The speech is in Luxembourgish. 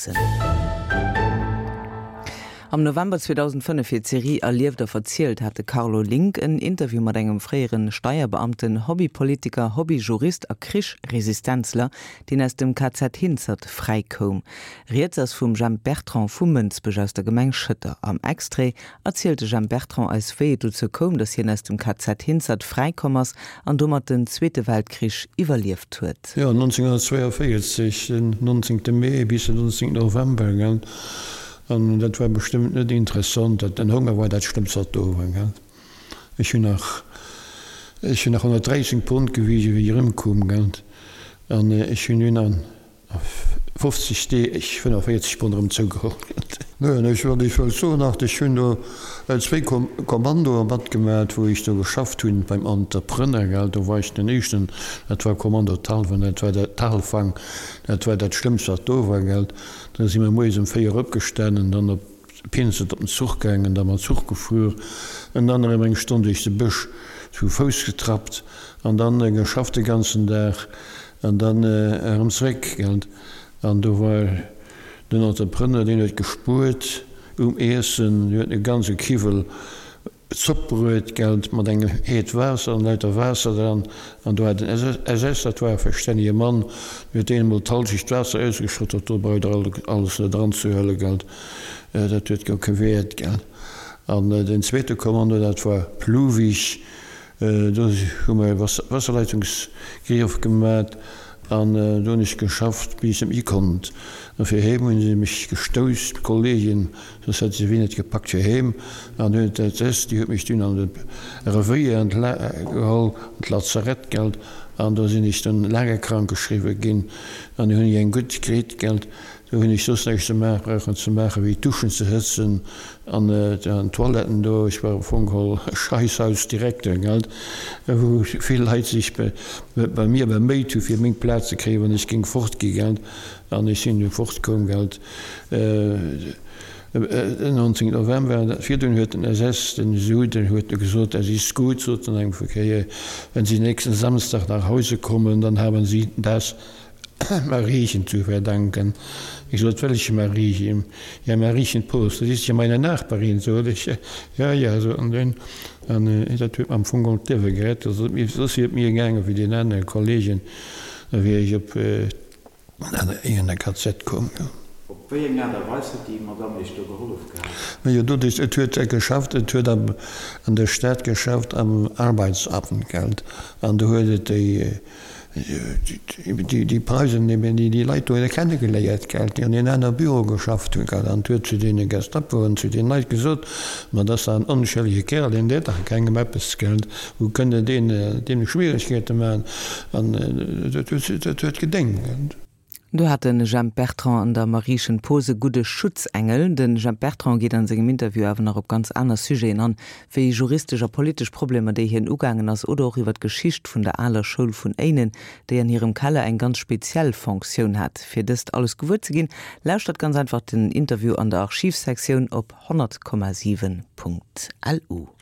Hansen. Am November 2005 fir d'Serie Erlieft a verzielt hat de Carlo Link en Interview mat engem fréiere Steierbeamten, Hobbypolitiker, Hobbyjurist a Krichresistenzler, deen aus dem KZ Hinzert fräi koum. Rieds ass vum Jemp Bertrand vu Mënsbech aus der Gemeng Schëtter. Am Extrait erzielt de Jemp Bertrand eis wéi et dozou koum, datt hien aus dem KZ Hinzert fräi komm ass an domat den Zweete Weltkrich iwwerlieft huet. Jo, 1942, den 19. Mee bis den 19. November, gell. An dat war bestëmmt net interessant. Dat, den Honger war dat Schlëmmst wat do war, gell. Ech hunn nach, ech hunn nach 113 Pond gewisen, wéi ech erëmkoum, gell. An ech hunn dunn an 50 Deeg 45 Pond erëm zougeholl. Neen, ech wat ech wëllt soen nach, ech hunn do zwéi Kommandoe matgemat, wou ech do geschafft hunn beim Entrepreneur, gell, do war ech den éischten, dat war Kommando Talwen, dat war dat Talfang, dat war dat Schlëmmst wat do war, gell. Da si mer moies um 4 opgestanen, dann op Pinsent op den Zuch gaangen, da mam Zuch gefuer en dann erëm eng Stonn duerch de Bësch zu Fouss getrappt an dann geschafft de ganzen Dag an dann erëm zeréck, gell. An do war den Entrepreneur, deen huet gespuert um Iessen, deen huet e ganze Kiwwel Zopp bruet, gell, mat engem Heet Waasser an lauter Waasser dran. An do hat en SS, dat war e verstännege Mann, deen huet deen emol d'Halschecht Waasser ausgeschott, dat do braucht der alles net eranzehuelen, gell, dat huet guer kee Wäert, gell. An den zweete Kommando, dat war Pluwig, do hu mer e Wasserleitungsgrief gemat an do hunn ech geschafft, bis ech net méi konnt. A fir heem hu se mech gestouss, d'Kollegen, Soss hätt se wéi net gepackt fir heem. An dunn huet d'SS, déi huet mech dunn an de Revéier geholl, an d'Lazarett, gelt, an do sinn ech dunn laange krank geschriwwe ginn. An du hunn ech eng gutt kritt, gelt. Do hunn ech soss näischt ze maachen brauchen ze maachen, wéi d'Duschen ze hëtzen an d'Toiletten do. Ech war am Fong geholl Scheisshausdirekter, gelt, wou vill Leit sech bei mir beméit hu fir meng Plaz ze kréien, wann ech géing fortgi, gelt. An ech sinn du fortkomm, gelt. Den 19 November virdrun huet den SS den Suden huet e gesot, Es ist gut, sot en eng Kéier, wenn Sie nächsten Samstag nach Hause kommen, dann haben Sie das Mariechen zu verdanken. Ich sot, Welche Mariechen? Ja, Mariechen Post, das ist ja meine Nachbarin, sot ech. Ja, ja, sot en dunn. An dat huet mer am Fong geholl d'Liewe gerett. Soss wier et mir gaange wéi den anere Kollegen, da wier ech op An en KZ koum, jo. Op wéi eng Aart a Weis huet déi Madamm Iech do gehollef gehat? Majo, doduerch, et huet geschafft, et huet am, an der Stad geschafft am Arbeitsamt, gelt, an do huet et déi, déi, déi Preisen eben, déi, déi Leit do kenne geléiert, gelt, déi an deenen aner Büroe geschafft hunn, gelt, an et huet zu deene Gestapo an zu deenen Leit gesot, Ma dat ass dach en onschëllege Kerl, deen deet dach kengem eppes, gelt, wou kënnt Der deen, deem Schwieregkeete maachen? An dat huet gedéngt. Do hat de Jemp Bertrand an der Mariechen Poos e gudde Schutzengel. De Jemp Bertrand geet an sengem Interview awer nach op ganz aner Sujeten an, wéi juristesch a politesch Problemer, déi hien ugaangen ass, oder och iwwer d'Geschicht vun der aler Schoul vun Éinen, déi an hirem Keller eng ganz speziell Fonctioun hat. Fir dëst alles gewuer ze ginn, lauschtert ganz einfach den Interview an der Archivsektioun op 100,7.lu.